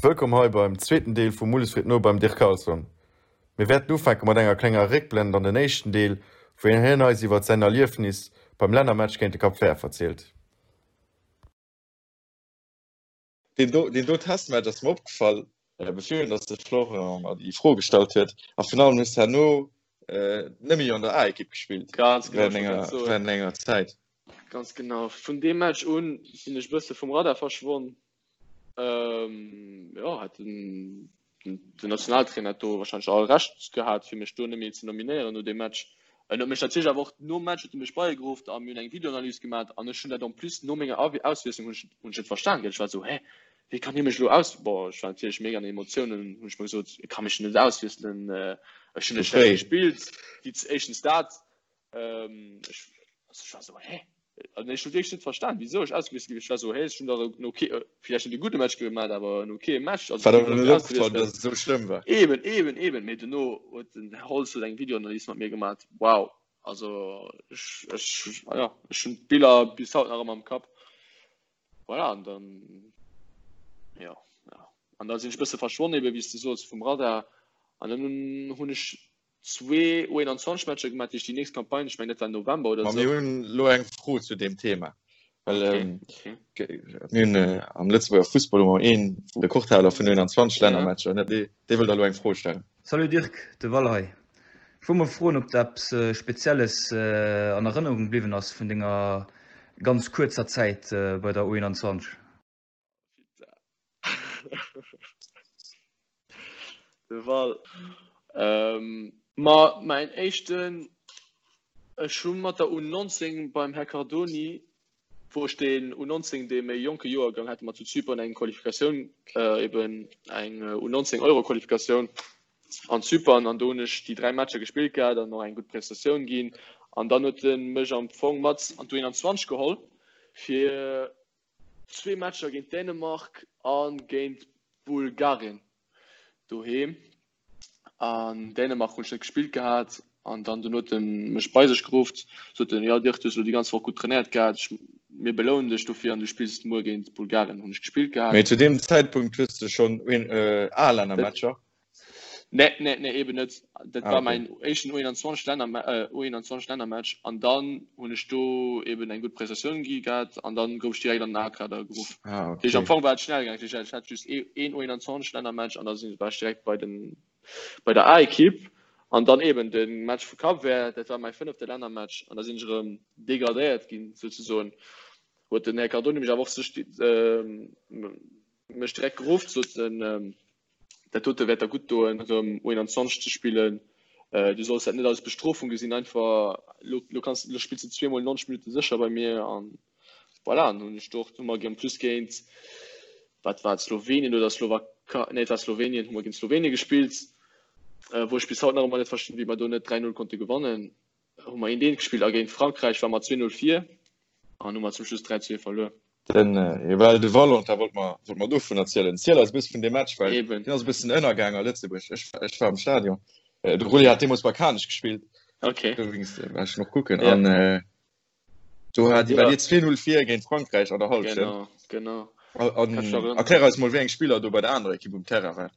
Wëllkomm hei beim zweeten Deel vu Mulles freet no beim Dirk Carlson. Mir wäerten ufänke mat enger klenger Réckblend an den éischten Deel, wou hien eis iwwert säin Erliefnis beim Lännermatch géint de Cap Vert verzielt. Deen do, deen do Testmatch ass mer opgefall, bevir dass de Florent mer déi Fro gestallt huet. A virun allem hues de herno net méi an der A-Ekipp gespillt. Ganz genau, ech wollt grad soen. Während enger Zäit. Ganz genau. Vun deem Match un sinn ech e bësse vum Radar verschwonn. Ähm, jo, hat den, den Nationaltrainer hat do wahrscheinlech all Recht gehat, fir mech do net méi ze nominéieren no deem Match. En huet mech natierlech awer och nom Match huet e mech bei geruff a mir hunn eng Videoanalys gemaach an ech hunn dat en plus no menger Auswiesslung hunn ech, hunn ech net verstan gell. Ech war esou, hä, wéi kann hie mech elo aus, bon, ech war natierlech mega an den Emotiounen, hunn ech mer gesot, e ka mech net auswiesselen, ech hunn net schlecht gespillt, déi éischtens dat, Ähm, ech, also ech war so, hä? Also ech hunn wierklech net verstan, wisou ech ausgewiesselt ginn. Ech war so, hä, ech hunn dach en okay, äh, vielleicht net e gudde Match gemaach, awer en okay Match. Also, War der net opgefall, dass et esou schlëmm war? Eben, eben, eben. Mee dono huet den Här Holtz huet eng Videoanalys mat mir gemaach. Wow. Also ech, ech, ja, ech hunn d'Biller bis haut nach ëmmer am Kapp. Voilà, an dann, ja, ja. An da sinn ech e bësse verschwonn, eben, wéi s de soos, vum Radar. An dann hunn ech zwee U21 Matcher gemaach, déi nächst Campagne, ech mengen dat war November oder Ma mir hunn elo eng Fro zu deem Thema, well okay, okay. mir hunn äh, am Lëtzebuerger Fussball hu mer een Rekordhaler vun 21 Lännermatcher, ne? Dee, dee wëll der elo eng Fro stellen. Salut Dirk, de Val hei. Ech wollt mol froen ob der eppes Spezielles an Erënnerung bliwwen ass vun denger ganz kuerzer Zäit bei der U21? De Val. Ähm, ma mäin éischten, ech hu mat der U19 beim Här Cardoni, wou ech deen U19, dee méi jonke Joergang, hate mer zu Zypern eng Qualifikatioun, äh, eben eng U19 Euro-Qualifikatioun an Zypern an do hunn ech déi 3 Matcher gespillt gehat an och eng gutt Prestatioun ginn. An dann huet en mech am Fong mat an d'U21 geholl fir Zwee Matcher géint Dänemark a géint Bulgarien doheem. An Dänemark hunn ech net gespillt gehat an dann dono huet en mech bei sech geruff, sot en, jo Dirk, du hues elo déi ganz Woch gutt trainéiert gehat, ech, mir belounen dech dofir an du spills muer géint Bulgarien. Hunn ech gespillt gehat. Mee zu deem Zäitpunkt hues de schonn A-Lännermatcher? Nee, nee, nee, eben net. Dat ah, war okay. mein éischten U21 Länner äh, U21 Lännermatch an dann hunn ech do eben eng gutt Prestatioun gi gehat an dann gouf ech direkt an den A-Kader geruff. Ah, okay. Am Fong war et schnell gaangen. Ech hat just ee, een U21 Lännermatch an da sinn war ech direkt bei den bei der A-Ekipp an dann eben den Match vu Cap Vert, dat war mein fënnefte Lännermatch an da sinn ech erëm degradéiert ginn souzesoen. Huet den Här Cardoni mech awer och sech äh, mech direkt geruff, sot en ähm, Dat dote wäert der gutt doen, erëm U21 ze spillen. Du solls dat net als Bestrofung gesinn, einfach lo, lo kanns, lo spills de zweemol 90 Minutte sécher bei mir an voilà. An hunn ech do och, hu mer en plus géint, wat war et, Slowenien oder Slowakei, nee et war Slowenien, hu mer géint Slowenien gespillt, wou ech bis haut nach ëmmer net verstinn, wéi mer do net 3, 0 konnte gewannen. Hu mer eent eent gespillt a géint Frankräich war mer 2, 0 vir an hu mer zum Schluss 3, 2 verluer. Den well de Valentin wollt mer wollt mer dovun erzielen. Ziel eis e bësse vun deem Match, well Eben. deen ass e bëssen ënnergaang a Lëtzebuerg. Ech ech war am Stadion. De Rulli hat deemools bei Kanech gespillt. Okay. Dowéinst war ech noch kucken. Ja. An do hat Ja. war dir 2-0 vir géint Frankräich an der Hallschent. Genau, genau. An Kann ich erinnern. erklär eis mol, wéi eng Spiller do bei der anerer Ekipp um Terrain waren.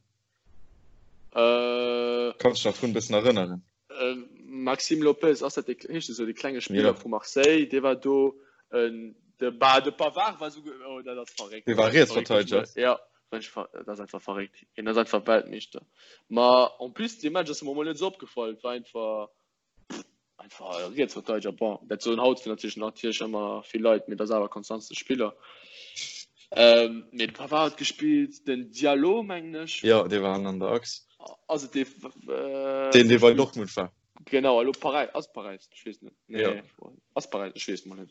Äh, Kanns du dech nach drun e bëssen erënneren? Äh, Maxime Lopez, ass dat dee, heescht esou, dee klenge Spiller Ja. vu Marseille, dee war do. Äh, de, ba, de Pavard war souguer, oh, dat ass verréckt. Dee war Dat ass verréckt, Rietsverteideger. Ja, dat ass einfach verréckt. Hien ass einfach Weltmeeschter. Ma en plus, dee Match ass mer mol net esou opgefall. Et war einfach, einfach e Rietsverteideger. Bon, dat soen haut natierlech natierlech ëmmer vill Leit, mee dat ass awer konstantste Spiller. Ähm, mee de Pavard huet gespillt, den Diallo, mengen ech. Jo, dee war an der Achs. Ass et dee, äh, Deen, dee bei Dortmund war. Genau, elo Paräis, ass Paräis, ech weess net. Nee, Ja. ass Paräis, ech weess mol net.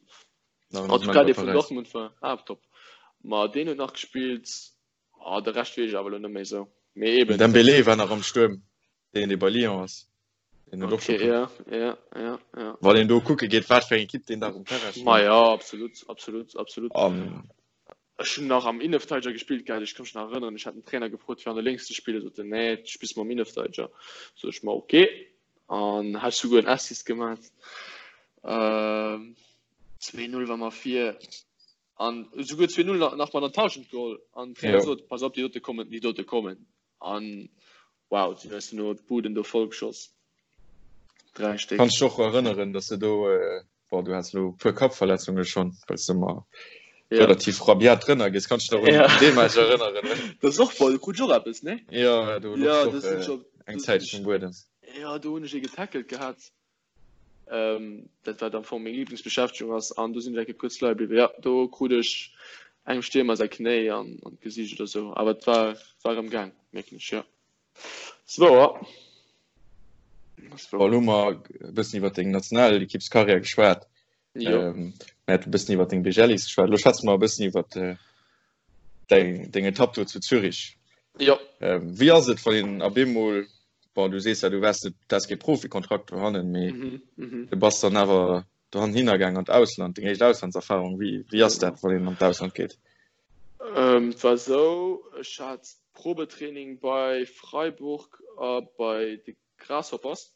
Nein, En tout cas, dee vun Paräis. Dortmund war, ah, top. Ma deen huet nach gespillt, ah, de Rescht weess ech awer elo net méi esou. Mee eben. Dembélé war nach am Stuerm, deen, dee bei Lyon ass. Deen huet och Okay, scho ja, ja, ja, ja. Wann een do kucke geet, wat fir eng Ekipp deen Dag um Terrain Ma stoung. ja, absolut, absolut, absolut. An Ech hunn nach am Innenverteidiger gespillt gehat, ech ka mech nach erënneren, ech hat den Trainer gefrot fir an der Lénks ze spillen, sot en nee, du spills mam Innenverteidiger. Sot ech ma ok an hat souguer en Assist gemat. Ähm, 2-0 war mer vir. An esouguer 2-0 nach mat an d'Hallschent geholl. An den Trainer sot, pass op, déi dote kommen, déi dote kommen. An wow, si hunn eis duerno d'Buden do voll geschoss. 3 Stéck. Kanns dech och erënneren, dass de do, bon, du has elo e puer Kappverletzunge schonn, well s de ëmmer relativ rabiat drënner gees. Kanns dech nach un dee Match erënneren? Dat ass och voll, do krut ech och eppes, nee? Jo, do louch s och eng Zäitchen um Buedem. Jo, do hunn ech ee getackelt gehat. Dat wat am Fong meng Lieblingsbeschäftegung ass an do sinn ech eng Kéier kuerz leie bliwwen. Jo, do krut ech engem Stiermer säi Knéi an an d'Gesiicht oder sou, awer et war war erëm gaang, mierken ech, jo. Ass wouer. Ass wouer. Bon, elo hu mer e bëssen iwwer deng Nationalekippskarriär geschwat. Jo. Mir hate e bëssen iwwer deng Bejellis geschwat. Elo schwätze mer e bëssen iwwer deng, deng Etapp do zu Zürich. Jo. Wéi ass et, wann een op eemol, bon, du sees ja, du waars net, du has kee Profikontrakt dohannen, mee mm -hmm. du bass dann awer dohannen hinnergaang an d'Ausland, deng éischt Auslandserfahrung. Wéi, wéi ass dat, wann een an d'Ausland geet? Ähm, et war esou, ech hat Probetraining bei Freiburg a bei de Grasshoppers.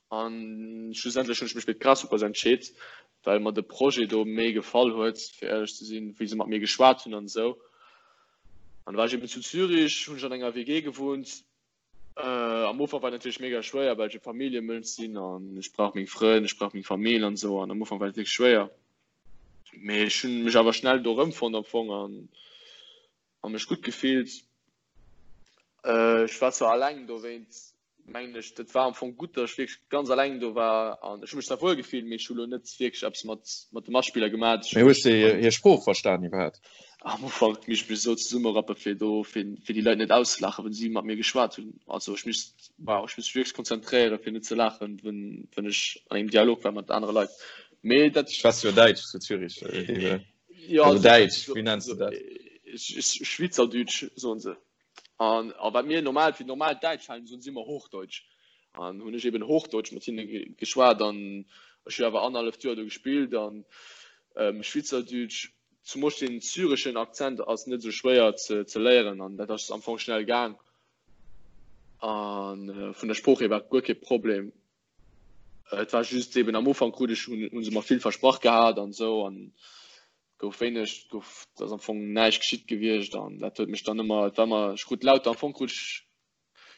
An schlussendlech hunn ech mech fir d'Grasshoppers entscheet, well mer de Projet do méi gefall huet, fir éierlech ze sinn, wéi se mat mir geschwat hunn an esou. An da war ech eben zu Zürich, hunn ech an enger WG gewunnt. Am Ufank war et natierlech mega schwéier, well ech e Familljemënsch sinn an ech brauch meng Frënn, ech brauch meng Famill an esou. An am Ufank war et wierklech schwéier. Mee ech hunn mech awer schnell do erëmfonnt am Fong an a mech gutt gefillt. Ech war zwar alleng dowéint mengen ech, dat war am Fong gutt, datt ech wierklech ganz alleng do war an ech hu mech zwar wuel gefillt, mee ech hu lo net wierklech eppes mat mat de Matspiller gemat. Mee hues de hir Sprooch verstan iwwerhaapt? Am Ufank misst ech mech esou zesummerappe fir do fir fir déi Leit net auszelachen, wann si mat mir geschwat hunn. Also ech misst wow, ech misst mech wierklech konzentréieren fir net ze laachen, wann wann ech an engem Dialog war mat anere Leit. Mee dat. Schwätz jo Däitsch zu Zürich. Ja, also Däitsch, wéi nenns du dat? Schweizerdeutsch soen se. An a wat mir normal fir normal Däitsch halen, soen si ëmmer Hochdeutsch. An hunn ech eben Hochdeutsch mat hinne geschwat an ech hu awer annerhalleft Joer do gespillt an Schweizerdeutsch, zumools den syreschen Akzent ass net esou schwéier ze ze léieren an dat ass am Fong schnell gaang. An vun der Sprooch hier war guer kee Problem. Et war just eben am Ufank krut ech hunn se mer vill versprach gehat an esou an gouf wéineg gouf ass am Fong näischt geschitt gewiescht an dat huet mech dann ëmmer et war mer ech krut lauter am Fong krut ech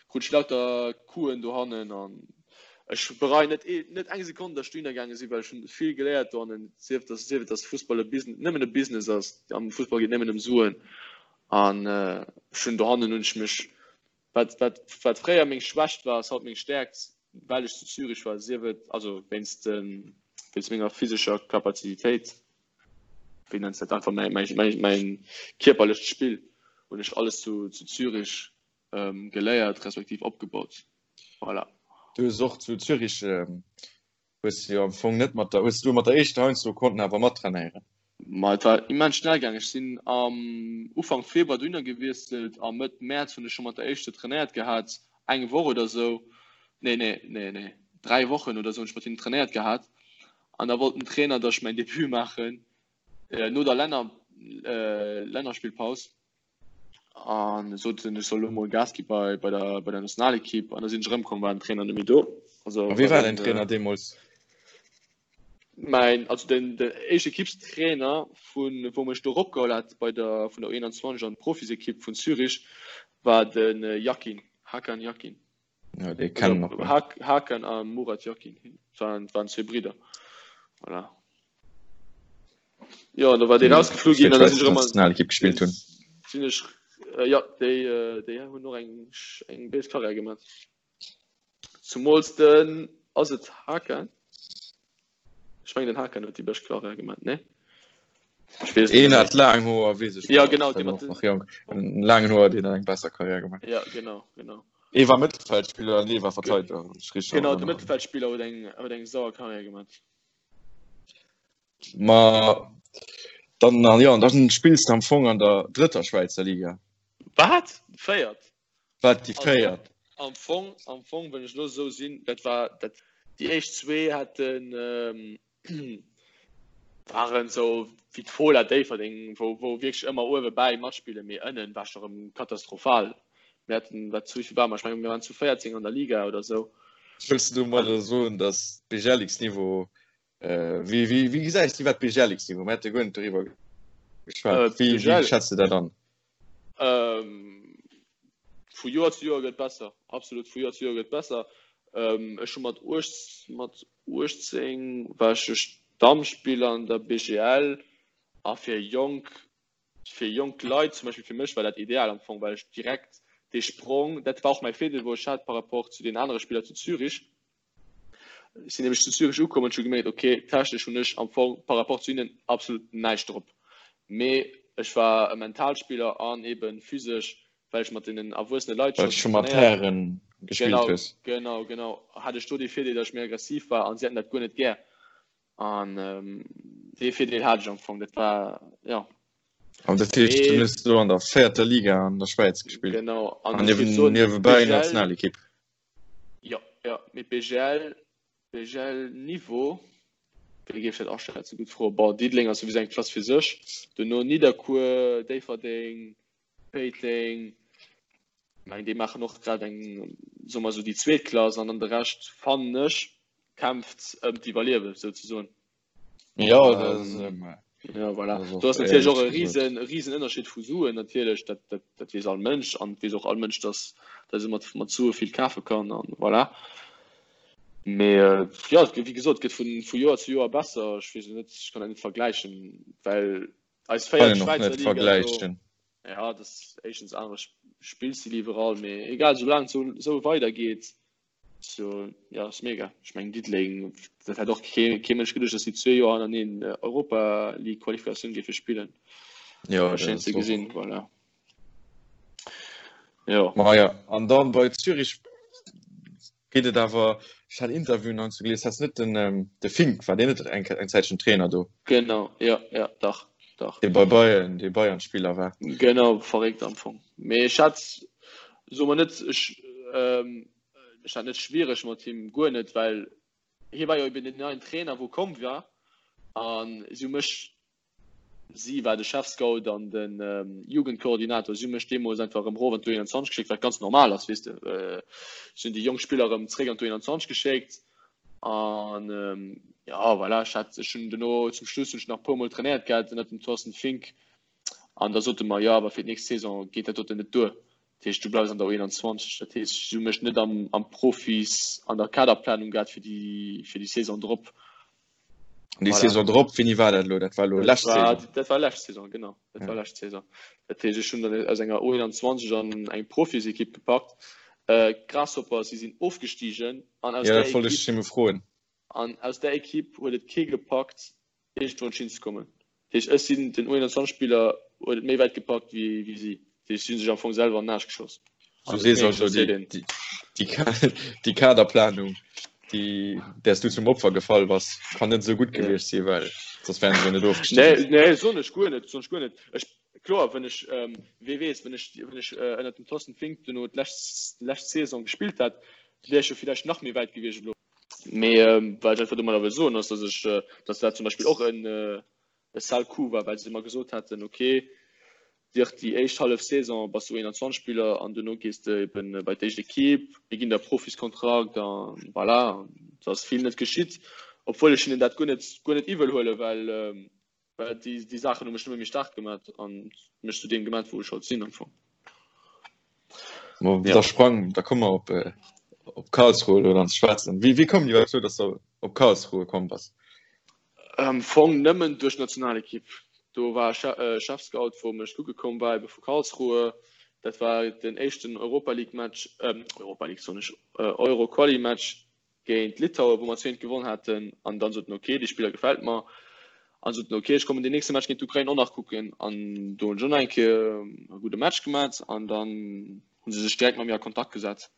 krut ech lauter Coupen dohannen an ech bereien net ee net eng Sekonn datt ech dohinner gaange sinn well ech hunn vill geléiert dohannen sief datt sief et datt Fussball e Business nëmmen e Business ass am Fussball geet nëmmen ëm Suen an ech hunn dohannen hunn ech mech Wat, wat, wat fréier meng Schwächt war, ass haut meng Stäerkt, well ech zu Zürich war, sief et also wéinst, wéinst menger physescher Kapazitéit, wéi nenns dat, einfach mäi, mäi, mäi, mäin kierperlecht Spill hunn ech alles zu, zu Zürich geléiert, respektiv opgebaut. Voilà. Du hues och zu Zürich Hues jo am Fong net mat der, hues du mat der éischter heiansdo konnten awer mattrainéieren? Ma et war immens schnell gaang. Ech sinn am Ufank Februar dohinner gewiesselt a Mëtt Mäerz hunn ech scho mat der éischter trainéiert gehat, eng Woch oder sou, nee, nee, nee, nee, 3 Wochen oder sou hunn ech mat hinnen trainéiert gehat an da wollt den Trainer, datt ech mäin Debut maachen no der Länner, Lännerspillpaus. An sot en, ech soll lo mol Gas gi bei, bei der, bei der Nationalekipp. An da sinn ech erëmkomm, war den Trainer net méi do. Also, A wie war däin Trainer deemools? Mäin, also den, den éischte Ekippstrainer vun, wou mech do eropgeholl hat bei der, vun der U21 an d'Profisekipp vun Zürich, war den Yakin, Hakan Yakin. Ja, dee kennen mer. Also, Hakan a Murat Yakin, waren, waren zwee Bridder. Voilà. Jo, an da war dee rausgeflu ginn an da sinn ech erëm an Nationalekipp gespillt hunn. Sinn ech, äh, ja, déi, äh, déi hunn och eng, eng béis Karriär gemaach. Zumools den, ass et Hakan? Ech mengen den Hakan huet déi bescht Karriär gemaach, ne? Ech weess et Een net hat laang Hoer, weess ech. Ja, genau, dee mat den. Nach jonk. En laangen Hoer, deen hat eng besser Karriär gemaach. Ja, genau, genau. Ee war Mëttelfeldspiller an ee war Verteideger, wann ech richteg Genau, de erënneren. Mëttelfeldspiller huet eng, huet eng sauer Karriär gemaach. Ma dann an ja, dann spills du am Fong an der drëtter Schwäizer Liga. Wat? Véiert? Wat déi véiert? Am Fong, am Fong, wann ech lo esou sinn, dat war dat déi éischt zwee haten ähm, waren esou wéi d'Fola Déifferdeng, wou wou wierklech ëmmer uewe bäi matspillen, mee ënnen war scho rëm katastrophal. Mir haten, wat zu wéivill ware mer? Ech mengen mir waren zu 14 an der Liga oder esou. Wëlls du domadder soen, datt Bejelliks Niveau Wéi, wéi, wéi gesäis du iwwer d'Bejelliks Niveau? Mir hate guer net doriwwer. Geschwat. Äh, wéi, wéi schätzt du dat an? Ähm, vu Joer zu Joer gëtt besser. Absolut vu Joer zu Joer gëtt besser. Ähm, ech hu mat 18, mat 18 war ech Stammspiller an der BGL a fir jonk fir jonk Leit, zum Beispill fir mech war dat ideal am Fong, well ech direkt dee Sprong, dat war och mäi Virdeel wou ech hat par rapport zu den anere Spiller zu Zürich. Ech sinn nämlech zu Zürich ukomm an ech hu gemierkt, okay, technesch hunn ech am Fong par rapport zu hinnen absolut näischt drop. Mee ech war e Mentalspiller an eben physesch, well ech mat deenen erwuessene Leit Well scho mat trainéiert. Hären gespillt Genau, hues. genau, genau, hat ech do dee Virdeel, datt ech méi aggressiv war an si hätten dat guer net gär. An dee Virdeel hat ech am Fong, dat war, jo. An dat heescht, du hues do an der véierter Liga an der Schwäiz gespillt? Genau, an ech géif soen, niewebäi Nationalekipp. Jo, jo, mee BGL, BGL Niveau, wéi géif ech dat aschätzen? Gutt Fro. Bon, Diddeleng ass souwisou eng Klass fir sech, duerno Nidderkuer, Déifferdeng, Péiteng, mengen déi maachen och grad eng, soe mer esou, déi zweet Klass an dann de Rescht, fannen ech, kämpft ëm d'Iwwerliewen souzesoen. Jo, dat ass, Ja, voilà. Do ass natierlech och e riesen, riesen Ënnerscheed vu Suen natierlech, dat, dat, dat weess all Mënsch an et weess och all Mënsch, dass, dass e mat, mat Sue vill kafe kann an voilà. Mee jo, wéi gesot, et gëtt vu, vu Joer zu Joer besser. Ech weess elo net, ech kann dat net vergläichen, well eis véiert Schwäizer Liga do, ja, dat ass éischtens anere Spillstil iwwerall, mee egal, soulaang et esou weidergeet, So, ja, ass mega. Ech mengen Diddeleng, dat hätt och kee, kee Mënsch geduecht, dass si zwee Joer hannereen Europa League Qualifikatioun géife spillen. Ja, War schéin ze gesinn, voilà. Jo. Ma ja, an dann bei Zürich geet et awer, ech hat Interviewen heiansdo gelies, hat net den, ähm, de Fink, war deen net eng, eng Zäitchen Trainer do? Genau, ja, ja, dach, dach. Dee bei Bayern, dee Bayern-Spiller war. Genau, verréckt am Fong. Mee ech hat, soe mer net, ech, ähm, Ech hat net schwiereg mat him, guer net, well hie war jo eben den neien Trainer wou komm war an si hu mech, si war de Chefscout an de Jugendkoordinator, si hu mech deemools einfach erëm erof an d'U21 geschéckt, wat ganz normal ass, weess de. Si hunn déi jonk Spiller erëm zeréck an d'U21 geschéckt an jo voilà, ech hat, ech hunn dono zum Schluss hunn ech nach e puer mol trainéiert gehat ënnert dem Thorsten Fink an da sote mer, jo awer fir d'nächst Saison geet dat doten net duer. Dat heescht, du bleifs an der U21. Dat heescht, si hu mech net am, am Profis, an der Kaderplanung gehat fir déi, fir déi Saison drop. An déi Saison drop, wéini war dat elo? Dat war elo lescht Saison? Dat war lescht Saison, genau. Dat war lescht Saison. Dat heescht, ech hunn dann aus enger U21 an eng Profisekipp gepackt. Grasshoppers, si sinn ofgestigen an aus där Ekipp, an aus där Ekipp huet et kee gepackt, iergendwou hinzekommen. Dat heescht, ech sinn den U21-Spiller huet et méi wäit gepackt wéi wéi si. Dat heescht, si hu sech am Fong selwer an den Aarsch geschoss. Du sees also, déi, déi, déi Kaderplanung, déi, där s du zum Opfer gefall bass, kann net esou gutt gewiescht sinn, well soss wären se jo net ofgestigen. Nee, nee, soen ech guer net, soen ech guer net. Ech, kloer, wann ech, wee weess, wann ech, wann ech ënnert dem Thorsten Fink duerno d'lescht, lescht Saison gespillt hätt, wier ech jo villäicht nach méi wäit gewiescht elo. Mee wat ech einfach domadder wëll soen, ass, dass ech, dass dat zum Beispill och en e sale coup war, well se mer gesot haten, okay, Dirk, déi éischt hallef Saison bass du 21 Spiller an duerno gees de eben bei d'éischt Ekipp, mir ginn der Profiskontrakt a voilà. An et ass vill net geschitt, obwuel ech hinnen dat guer net, guer net iwwel huelen, well Well déi, déi Saachen hu mech nëmme méi staark gemat an mech zu deem gemat, wou ech haut sinn am Fong. Ma ja. Da sprang, da komme mer op, äh, op Karlsruhe elo dann ze schwätzen. Wéi, wéi koum dir dozou, dass du op Karlsruhe komm bass? Am Fong nëmmen duerch d'Nationalekipp. Do war e Chefscout, wou mech kucke komm war, ebe vu Karlsruhe. Dat war den éischten Europa League Match, ähm, Europa League soen ech, Euro Quali Match géint Litauen, wou mer 2 gewonnen haten, an dann sot en ok, dee Spiller gefält mer, an sot en ok, ech kommen den nächste Match géint d'Ukrain och nach kucken, an do hunn ech och nach eng Kéier e gudde Match gemat, an dann hu se sech direkt mat mir a Kontakt gesat,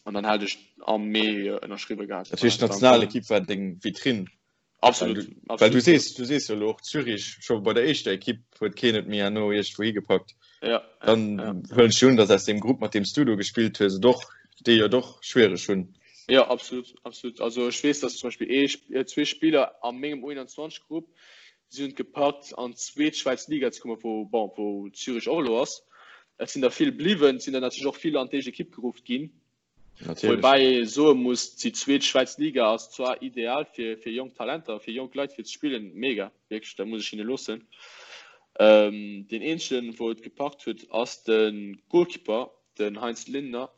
an dann hat ech am Mee ënnerschriwwe gehat. Dat heescht d'Nationalekipp war deng Vitrinn? Absolut, Well du, well du sees, du sees jo elo och Zürich, scho bei der éischter Ekipp huet keen et méi herno iergendwou higepackt. Ja, Dann ja. huelen ech un, datt aus deem Grupp, mat deem s du do gespillt hues, et och déi jo och schwiereg hunn. Ja, absolut, absolut. Also ech weess, datt zum Beispill ee, äh, zwee Spiller a mengem U21-Grupp, si hunn et gepackt an d'zweet Schwäiz Liga ze kommen, wou, bon, wou Zürich och elo ass. Et sinn der vill bliwwen, et sinn der natierlech och vill an d'éischt Ekipp geruff ginn. Woubäi ee soe muss, déi zweet Schwäiz Liga ass zwar ideal fir fir jonk Talenter, fir jonk Leit fir ze spillen, mega, wierklech, dat muss ech hinne loossen. Deen eenzegen, wou et gepackt huet, ass de Goalkeeper, den Heinz Lindner.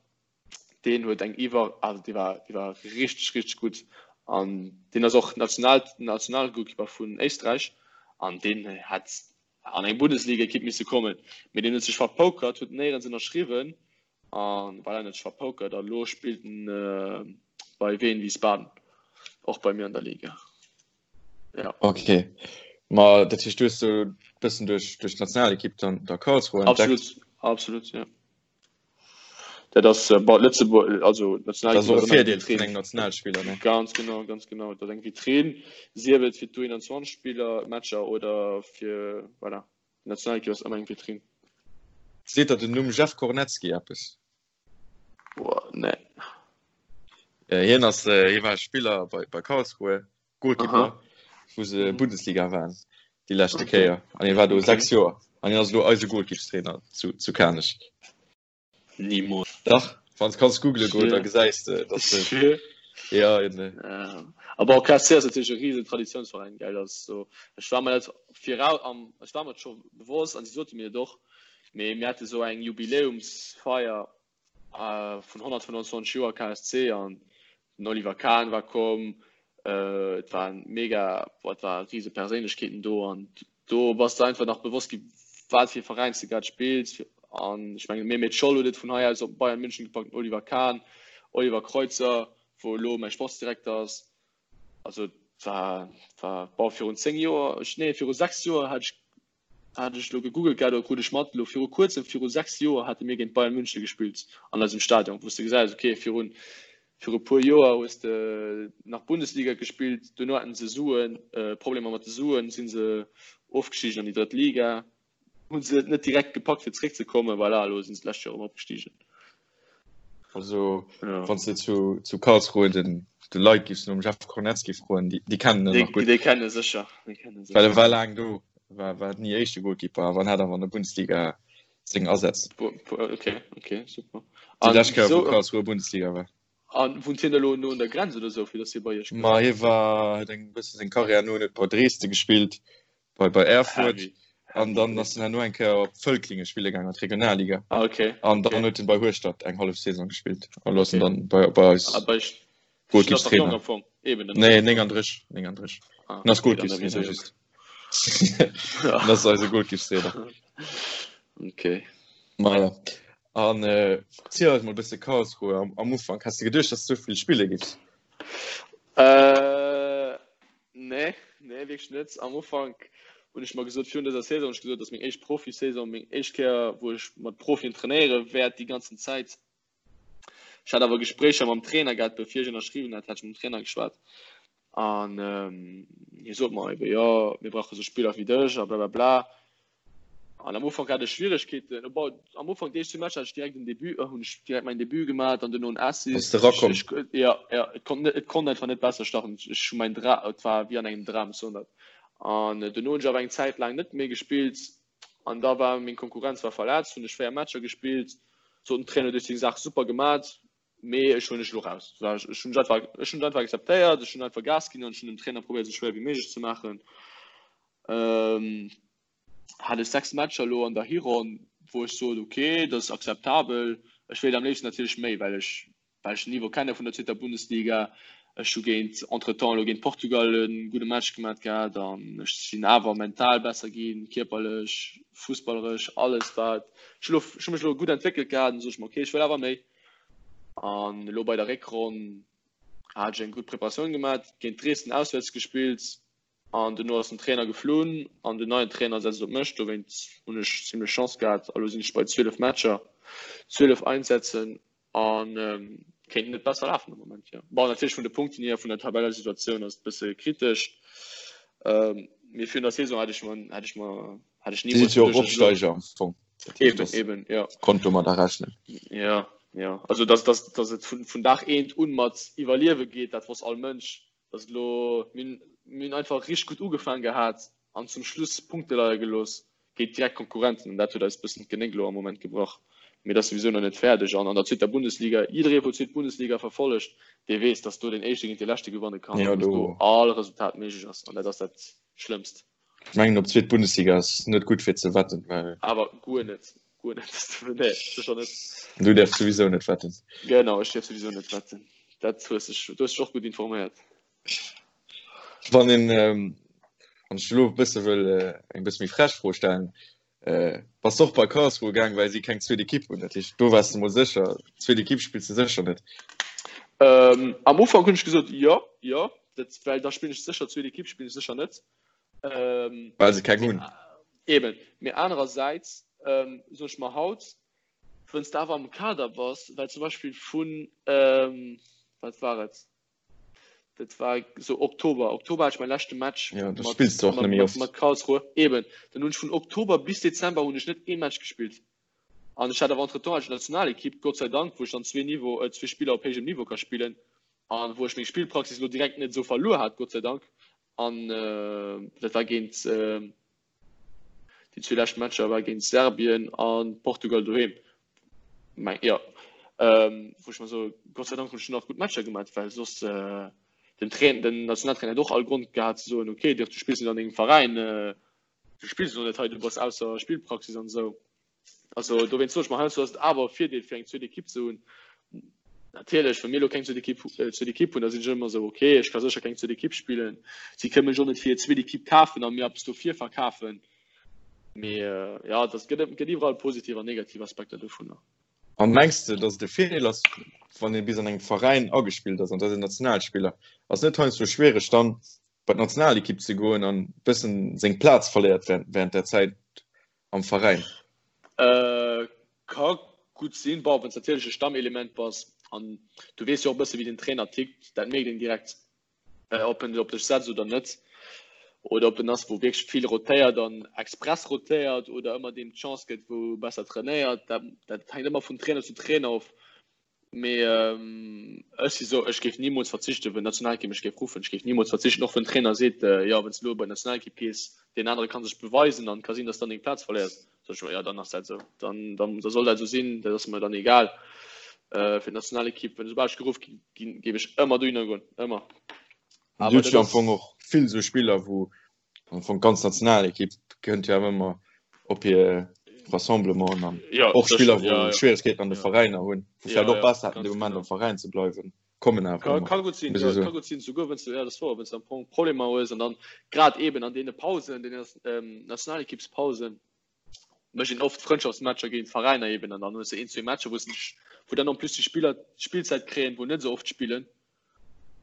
Deen huet eng iwwer, also dee war, dee war richteg, richteg gutt. An deen ass och National, Nationalgoalkeeper vun Éisträich. An deen hätt an eng Bundesliga-Ekipp misse kommen. Mee deen huet sech verpokert, huet néierens ënnerschriwwen. An voilà, en huet sech verpokert a lo spillt en bei Wien Wiesbaden, och bei mir an der Liga. Ja. Okay. Ma dat heescht, du hues so bëssen duerch duerch d'Nationalekipp dann der Karlsruhe entdeckt? Absolut, absolut, ja. Dat ass äh, bei Lëtzebuerg, also Nationalekipp Das ass och e Virdeel vun engem Nationalspiller, ne? Ganz genau, ganz genau. Dat ass eng Vitrine, sief et fir d'U21 Spiller, Matcher oder fir, voilà, d'Nationalekipp ass ëmmer eng Vitrine. Seet der den Numm Jeff Kornecki eppes? Boah, nee. Äh, hien ass äh, hie war Spiller bei, bei Karlsruhe, Goalkeeper, wou se mhm. Bundesliga waren déi leschte okay. Kéier. An hie war do okay. 6 Joer. An hien ass lo eise Goalkeepstrainer zu, zu Kanech. Niemals. Dach, wann kanns googlen goen, da gesäis de, dass de Ja, eben. Ja. Aber auch KSC ass natierlech e riesen Traditionsverein, gell, das so. Ech war mir dat virau am, ech war mir dat scho bewosst an si sote mir et och, mee mir hate sou eng Jubiläumsfeier äh, vun 125 Joer KSC an den Oliver Kahn war komm, äh, et waren mega, boah, et war riese Perséinlechkeeten do an do bass de einfach nach bewosst gi wat fir e Veräin s de grad spills an ech mengen Mehmet Scholl huet et vun hei aus op Bayern München gepackt, Oliver Kahn, Oliver Kreuzer, wou elo mäi Sportsdirekter ass. Also et war, war bon virun 10 Joer, ech nee viru 6 Joer hat ech hat ech elo gegoogelt gehat oder krut ech mat, elo viru kuerzem, viru 6 Joer hate mir géint Bayern München gespillt an eisem Stadion, wou s de gesäis, okay virun Viru puer Joer hues de nach Bundesliga gespillt, duerno haten se Suen, Problemer mat de Suen, si se ofgestigen an déi drëtt Liga, hu se et net direkt gepackt fir zeréck ze kommen, voilà, elo sinn se d'lescht Joer erëm opgestigen. Also wann s de zu zu Karlsruhe den de Leit giffs nom Jeff Kornecki froen, déi déi kennen en nach gutt. Déi kennen e sécher, déi kennen e sécher. Well e war laang do, war war ni éischte Goalkeeper, awer en hat awer an der Bundesliga seng Asätz. Okay, okay, super. Déi lescht Kéier, wou Karlsruhe Bundesliga war. An wunnt hien elo no un der Grenz oder sou, fir datt hie bei iech kënnt? Ma hie war, huet eng bësse seng Karriär no huet bei Dresden gespillt, bei bei Erfurt Heavy. an dann ass en herno eng Kéier op Völklingen spille gaangen an d'Regionalliga. Ah, okay. An dann huet en bei Hueschtert eng hallef Saison gespillt an elo ass en dann bei bei eis. Ah, bei Goalkeepstrainer. Nee, 39, 39. Ah, en ass Goalkeepstrainer just. En ass eise Goalkeepstrainer. Okay. Maja. An äh, ziel eis mol bësse Karlsruhe am, am Ufank. Has de geduecht, dass du vill Spille gibst? Äh, nee, nee, wierklech net. Am Ufank hunn ech mer gesot, virun dëser Saison hunn ech gesot, dass meng éischt Profisaison, meng éischt Kéier, wou ech mat Profien trainéiere wäert déi ganzen Zäit. Ech hat awer Gespréicher mam Trainer gehat, bevir ech ënnerschriwwen hat, hat ech mam Trainer geschwat an hie sot mer ebe jo, mir brauche sou Spiller wéi dech a blablabla. An am Ufank hat ech Schwieregkeeten, bon, am Ufank déi éischt zwou Matcher hat ech direkt en Debut, hunn ech direkt mäin Debut gemat an duerno en Assist. Bass de rakomm? Ech, jo, jo, et konnt net, et konnt einfach net besser starten. Ech hu mäin Dra, et war wéi an engem Dram, ech soen dat. An duerno hunn ech awer eng Zäit laang net méi gespillt An da war meng Konkurrenz war verletzt, hunn ech 4 Matcher gespillt, sot den Trainer, du hues deng Saach super gemat, mee ech huelen dech elo raus. Ech hunn einfach, ech hunn et einfach akzeptéiert, ech hunn einfach Gas ginn an ech hunn dem Trainer probéiert esou schwéier wéi méiglech ze maachen. Hat ech 6 Matcher elo an der Hironn, wou ech sot, ok, dat ass akzeptabel. Ech wéilt am léifsten natierlech méi, well ech well ech den Niveau kenne vun der zweeter Bundesliga. Ech hu géint entretemps elo géint Portugal e gudde Match gemat gehat an ech sinn awer mental besser ginn, kierperlech, fussballeresch, alles wat ech elo, ech hu mech elo gutt entwéckelt gehat an sot ech mer, okay, ech wëll awer méi. An elo bei der Réckronn hat ech eng gutt Preparatioun gemat, géint Dresden auswäerts gespillt, An duerno ass den Trainer geflunn an den neien Trainer setzt op mech. Dowéinst hunn ech zimlech Chance gehat. A lo sinn ech bei 12 Matcher, 12 Einsätzen a kéint net besser lafen am Moment, jo. Bon, natierlech vun de Punkten hier, vun der Tabellesituatioun ass et e bësse kritesch. Mee virun der Saison hätt ech mer, hätt ech mer, hätt ech Dir sidd nimools jo och geduecht, dass ech elo. Opsteiger am Fong. Dat heescht, Eben, dass eben, jo. konnt domadder rechnen. Jo, jo. Also dass, dass, dass et vun, vun Dag eent un mat Iwwerliewe geet, dat wosst all Mënsch. Dass et elo, mir hunn, mir hunn einfach richteg gutt ugefaang gehat an zum Schluss Punkte leie gelooss géint direkt Konkurrenten an dat huet eis e bëssen d'Genéck elo am Moment gebrach. Mee dat ass souwisou nach net fäerdeg an an der zweeter Bundesliga, jidderee wou d'zweet Bundesliga verfollegt, dee weess, dass do deen Éischte géint dee Leschte gewanne kann Ja, an dass do do all Resultat méiglech ass an dat ass dat Schlëmmst. Ech mengen op zweet Bundesliga ass net gutt fir ze wetten, well. Awer guer net, guer net. Nee, sécher net. Du däerfs souwisou net wetten. Genau, ech däerf souwisou net wetten. Dat hues dech, du hues dech och gutt informéiert. Wann een, wann ech elo e bësse wëll eng bësse méi frech Fro stellen, bass de och bei Karlsruhe gaang, well si keng zweet Ekipp hunn? Dat heescht, do waars de mol sécher, zweet Ekipp spills de sécher net. Am Ufank hunn ech gesot, jo, jo, dat, well da spillen ech sécher zweet Ekipp spillen ech sécher net. Well se keng hunn. Eben, mee anerersäits soen ech mer haut, wënns de awer am Kader bass, well zum Beispill vun, wat war et, Dat war sou Oktober. Oktober hat ech mäi leschte Match ja, mat, spillst du och mat, mat, mat Karlsruhe. Eben. Dann hunn ech vun Oktober bis Dezember hunn ech net ee Match gespillt. An ech hat awer entretemps hat ech Nationalekipp, Gott sei Dank, wou ech dann zwee Niveau, äh, zwee Spiller op héijem Niveau ka spillen an wou ech meng Spillpraxis lo direkt net esou verluer hat, Gott sei Dank. An äh, dat war géint äh, Déi zwee lescht Matcher war géint Serbien a Portugal doheem. Meng jo wou ech mer soe Gott sei Dank hunn ech nach gutt Matcher gemat, well soss den Trainer, den Nationaltrainer hätt och all Grond gehat ze soen, okay Dirk, du spills net an dengem Veräin, du spills elo net hei, du bass ausser Spillpraxis an esou. Also dowéinst soe ech mer, heiansdo ass et awer e Virdeel fir eng zweet Ekipp ze hunn. Natierlech, wa mir elo keng zweet Ekipp, zweet Ekipp hunn, da sinn ech ëmmer esou, okay, ech ka sécher keng zweet Ekipp spillen. Si kënne mech och net fir hir zweet Ekipp kafen a mir eppes dofir verkafen. Mee jo, et gëtt, gëtt iwwerall positiv an negativ Aspekter dovunner. An mengs de, datt et e Virdeel ass, wann ee bis an engem Veräin agespillt ass, an dat ass en Nationalspiller, ass net heiansdo schwiereg dann bei d'Nationalekipp ze goen an e bëssen seng Plaz verléiert während där Zäit am Veräin? Äh, ka gutt sinn. Bon, wann s natierlech e Stammelement bass an du weess jo och e bësse wéi den Trainer tickt, dat mierkt een direkt, ob en op dech setzt oder net. Oder ob en ass, wou wierklech vill rotéiert an express rotéiert oder ëmmer deem d'Chance gëtt, wou besser trainéiert. Dat, dat hänkt ëmmer vun Trainer zu Trainer of. Mee ech si sou, ech géif nimools verzichten, wou d'Nationalekipp mech géif ruffen. Ech géif nimools verzichten, och wann den Trainer seet, jo, wann s de elo bei d'Nationalekipp gees, deen anere ka sech beweisen an et ka sinn, datt s dann deng Plaz verléiers. Sot ech, jo, dann ass dat esou, dann, dann, da soll dat esou sinn, dat ass mer dann egal. Fir d'Nationalekipp, wenn soubal ech geruff ginn, géif ech ëmmer dohinner goen, ëmmer. Awer dat ass am Fong och vill esou Spiller, wou Am Fong d'ganz Nationalekipp kënnt jo awer ëmmer op hir Rassemblementen an ja, och Spiller, wou ja, ja. Schwieregkeeten an de ja. Veräiner hunn, wou ja, vläicht och ja, besser hätten, ganz de Moment genau. am Veräin ze bleiwen, kommen awer Ka, ëmmer. ka gutt sinn, Muss ja, ech soen. ka gutt sinn, souguer wann s du, ja, dat ass wouer, wann s du am Fong Problemer hues an dann grad eben an deene Pausen, deene ähm, Nationalekippspausen, mécht een oft Frëndschaftsmatcher géint Veräiner eben an dann hues du een, zwee Matcher, wou s du dech, wou dann en plus déi Spiller d'Spillzäit kréien, wou net esou oft spillen.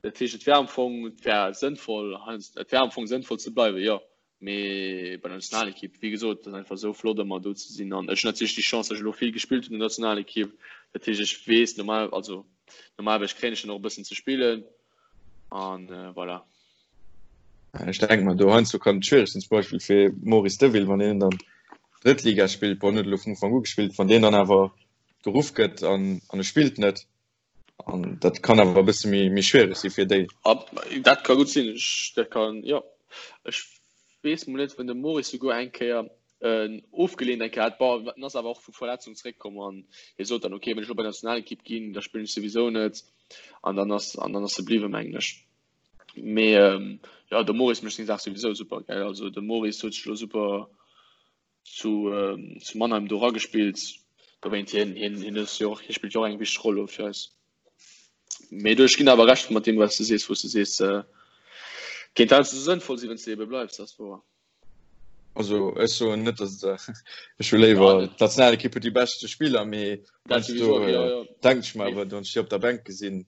Dat heescht, et wär am Fong, et wär sënnvoll, et wär am Fong sënnvoll ze bleiwen, jo. Mee bei der Nationalekipp, wéi gesot, et ass einfach esou flott ëmmer do ze sinn. An ech hunn natierlech déi Chance, datt ech elo vill gespillt hunn an der Nationalekipp. Dat heescht, ech weess normal, also normalerweis kréien ech dann och e bëssen ze spillen an voilà. Ech denke mer, do heiansdo kann et schwiereg sinn, zum Beispill fir Maurice Deville, wann deen dann Drëttliga spillt, bon, en huet elo vun Ufank u gespillt, wann deen dann awer geruff gëtt an e spillt net, An dat kann awer e bësse méi, méi schwiereg si fir déi. Ab, dat ka gutt sinn. Ech, dat kann, jo. Ech weess mol net, wann de Maurice souguer eng Kéier en ofgeleent eng Kéier hat. Bon, en ass awer och vu Verletzung zeréckkomm an hie sot dann, okay, wann ech elo bei d'Nationalekipp ginn, da spillen ech souwisou net. An dann ass, an dann ass e bliwwen, mengen ech. Mee, jo, de Maurice mécht seng Saach souwisou super, gell. Also de Maurice huet sech elo super zu, ähm, zu Mannheim do ragespillt. Dowéint hien, hien, hien ass jo och, hie spillt jo och eng wichteg Roll elo fir eis. Mee du, ech ginn awer Recht mat deem, wat s du sees, wou s du sees, äh, kéint heiansdo sënnvoll sinn, wann s du ebe bleifs, dat ass wouer. Also ech soen net, dass et, ech hu léiwer ja, d'Nationalekipp huet déi beschte Spiller, mee dat heiansdo sowieso, ja, ja. denke ech mer awer, wann ech déi op der Bänk gesinn,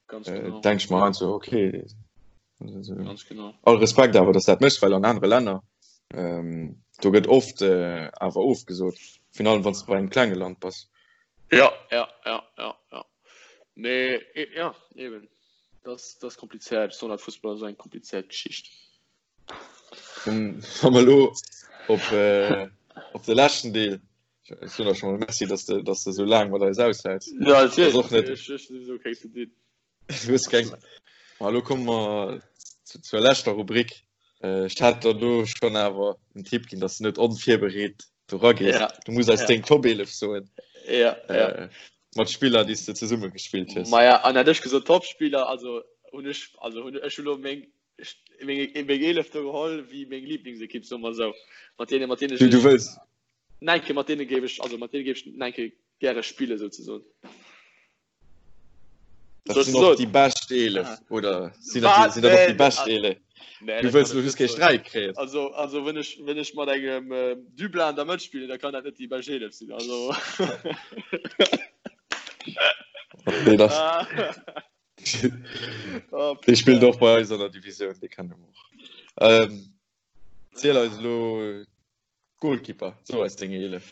Ganz genau. denke ech mer heiansdo, okay, Ganz genau. All Respekt awer, dass dat méchs, well an anere Länner ähm, do gëtt oft äh, awer ofgesot, virun allem wann s de bei engem klenge Land bass. Ja, ja, ja, ja, ja. Mee e, ja, eben. Das, das komplizéiert. Besonders Fussball ass eng komplizéiert Geschicht. Dann wa mer elo op, äh, op de leschten Deel Ech soen der scho mol Merci, dass de, dass de sou laang mat eis aushäls. Ja, Das ass och net ech, ech, ech, okay, zu dir. Du hues keng. Ma elo komme mer zur leschter Rubrik. Ech hat der do schonn awer en Tipp ginn, dass du net onvirbereet do ragees. Ja. Du muss eis Ja. deng Top 11 soen. Ja, ja. Mat Spiller, déi s de zesumme gespillt hues. Maja, an hätt ech gesot Topspiller, also hunn ech, also hunn ech elo meng. meng 11 do geholl wéi meng Lieblingsekipp soe mer esou. Mat deene mat deene Du, du wëlls Neinke mat deene géif ech also mat deene géif ech neinke gäre spille souzesoen. Dat sinn och déi bescht 11 ah. oder sinn dat, sinn dat och déi bescht 11? Nee, du wëlls just kee Sträit kréien. Also, also wenn ech, wenn ech mat engem äh, Dublin an der Mëtt spillen, da kann dat net déi bescht 11 sinn. Also. okay, das. Ah. oh, Dee spillt och bei eis an der Divisioun, dee kennen mer och. Ähm, ziel eis elo Goalkeeper, so eis deng 11.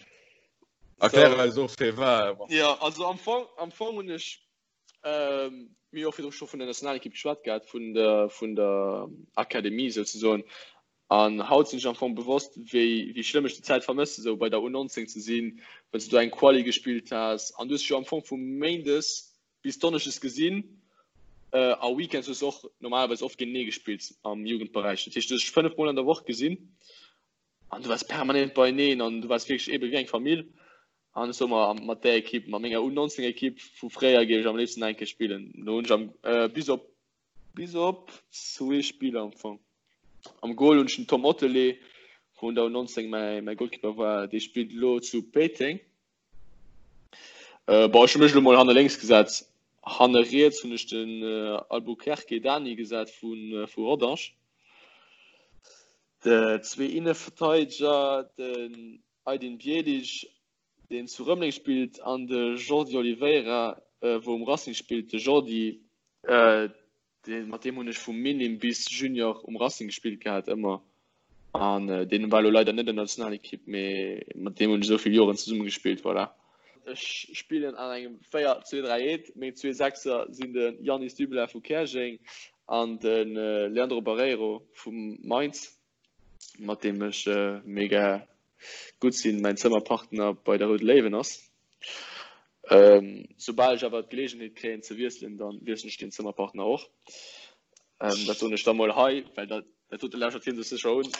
Erklär so. eis och fir war. Ja, also am Fong, am Fong hunn ech ähm, mir och virdru scho vun der Nationalekipp geschwat gehat, vun der, vun der Akademie souzesoen. An haut sinn ech am Fong bewosst, wéi, wéi schlëmm ech déi Zäit vermësse, sou bei der U19 ze sinn, wann s du do eng Quali gespillt has. An du hues dech jo am Fong vu Méindes bis Donneschdes gesinn. A Weekends hues du och normalerweis oft géintenee gespillt am Jugendberäich. Dat heescht, du hues dech 5 Mol an der Woch gesinn an du waars permanent beieneen an du waars wierklech eebe wéi eng Famill. An ech soe mer, mat där Ekipp, mat menger U19-Ekipp vu fréier géif ech am léifsten nach eng Kéier spillen. Do hunn ech am, bis op Bis op zwee Spiller am Fong. Am Goal hunn ech den Tom Ottelé, wou un der U19 mäi Goalkeeper war, dee spillt elo zu Péiteng. Bon, ech hu mech elo mol hanne lénks gesat. Hanne riets hunn ech den Albuquerque Dani gesat vu Rodange. Zwee Inneverteideger, den Aydin Bjelic deen zu Rëmeleng spillt, an de Jordi Oliveira, wou um Racing spillt. De Jordi, dee mat deem hunn ech vu Minim bis Junior um Racing gespillt gehat ëmmer, an deen war elo leider net an der Nationalekipp, mee mat deem hunn ech esou vill Joren zesumme gespillt, voilà. Ech spillen an engem 4, 2, 3, 1. Meng zwee Sechser sinn de Yanis Dublin vu Käerjeng an de Leandro Barreiro vu Mainz. mat deem ech mega gutt sinn, mäin Zëmmerpartner bei der Roude Léiwen ass. Soubal ech awer d'Geleegenheet kréien ze wiesselen, da wiesselen ech deen Zëmmerpartner och. Dat soen ech da mol hei, well dat dat dote lauschtert hie sech sécher un.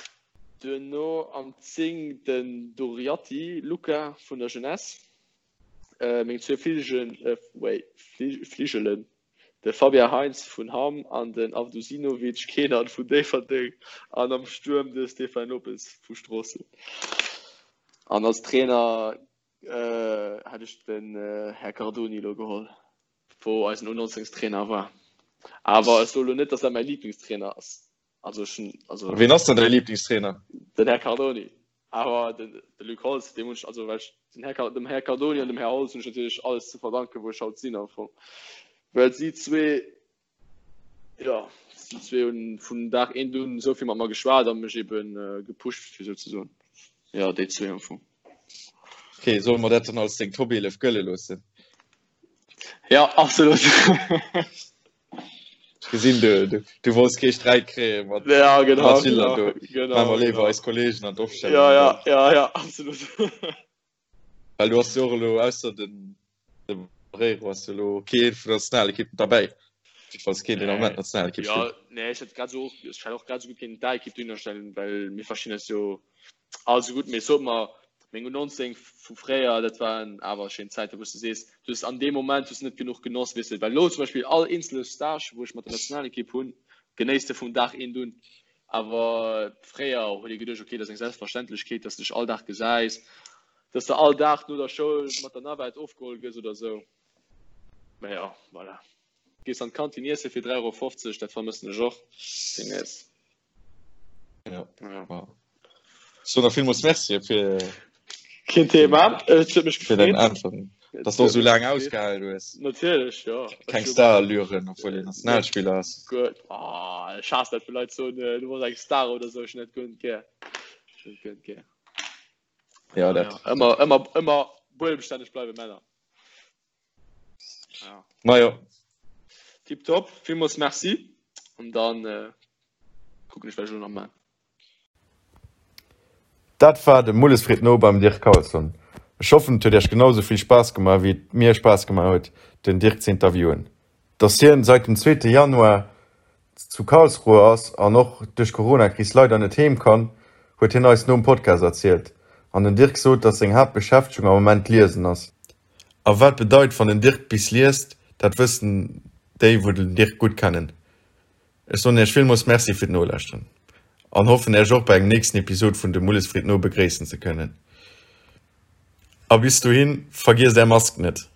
Duerno am 10 den Doriatti Luca vun der Jeunesse, meng zwee Fligelen, wait, Fligelen, De Fabien Heintz vun Hamm an den Avdusinovic Kenan vun Déifferdeng an am Stuerm de Stéphane Lopes vu Stroossen. An als Trainer hätt ech den Här Cardoni elo geholl, wou eisen U19 Trainer war. Awer ech soe lo net, datt dat mäi Liblingstrainer ass. Also ech hunn, also. Ween ass dann däi Liblingstrainer? Den Här Cardoni. Awer den de Luc Holtz, deem hunn ech, also well ech den Här, dem Här Cardoni an dem Här Holtz hunn ech natierlech alles ze verdanken, wou ech haut sinn am Fong. Well si zwee, jo, si zwee hunn vun Dag eent un esou vill mat mer geschwat a mech eben gepusht, fir esou ze soen. Jo, déi zwee am Fong. Ok, solle mer dat dann als deng Top 11 gëlle loossen? Ja, absolut. Ech gesinn, du, du, du wollts kee Sträit kréie mat ja, genau, mat Schiller genau, do. Genau, Maache mer léiwer genau. eis Kollegen an d'Opstellung. Ja, ja, ja, ja, absolut. Well du hast jo och elo ausser den de Barreiro hast du elo kee vun der Nationalekipp derbäi. Jiddefalls keen, deen am Moment Nationalekipp Ja, spillt. nee, ech hätt grad sou och, ech hätt och grad sou gutt kéinten d'A-Ekipp dohinner stellen, well mir verstinn eis jo all sou gutt. Mee sot mer, Meng U19 vu fréier, dat waren awer schéin Zäiten, wou s de sees, du hues an deem Moment hues de net genuch genoss, weess de. Well elo zum Beispill all eenzele Stage, wou ech mat der Nationalekipp hunn, genéiss de vum Dag eent un. Awer fréier huet ee geduecht, okay, dat ass eng Selbstverständlechkeet, dass de dech all Dag gesäis, dass de all Dag no der Schoul mat der Navette ofgeholl gëss oder esou. Mä jo, voilà. Gees an d'Kantin iesse fir 3,50 Euro, dat vermëssen ech och deemnächst. Ja. ja. So nach villmools Merci fir Keen Thema. Et huet mech fir dein Antworten. Dass du so lang ausgehalen hues. Natierlech ja. Keng Starallüren, obwohl een Nationalspieler ass. Gutt. Oh, ech haass dat, wou Leit soen, äh, du bass eng Star oder sou. Ech hunn dat guer net gär. Ech hunn dat guer net gär. Ja, dat. Ja, ëmmer, ëmmer, ëmmer buedemstänneg bleiwen, Männer. Ja. Majo. Tipptopp, villmools Merci. An dann äh, kucken ech, wat ech elo nach man. Dat war de Mulles freet no beim Dirk Carlson. Ech hoffen et huet iech genau sou vill Spaass gemaach wéi et mir Spaass gemaach huet den Dirk ze interviewen. Dass hien seit dem zweete Januar zu Karlsruhe ass an och duerch d'Coronakris leider net heem kann, huet hien eis nom Podcast erzielt. An den Dirk sot, dass seng Haaptbeschäftegung am Moment d'Liesen ass. A wat bedeit wann den Dirk bis liest, dat wëssen déi wou den Dirk gutt kennen. Ech soen Iech villmools Merci fir d'Nolauschteren an hoffen Iech och bei engem nächsten Episod vun de Mulles freet no begréissen ze kënnen. A bis dohin, vergiesst Är Mask net!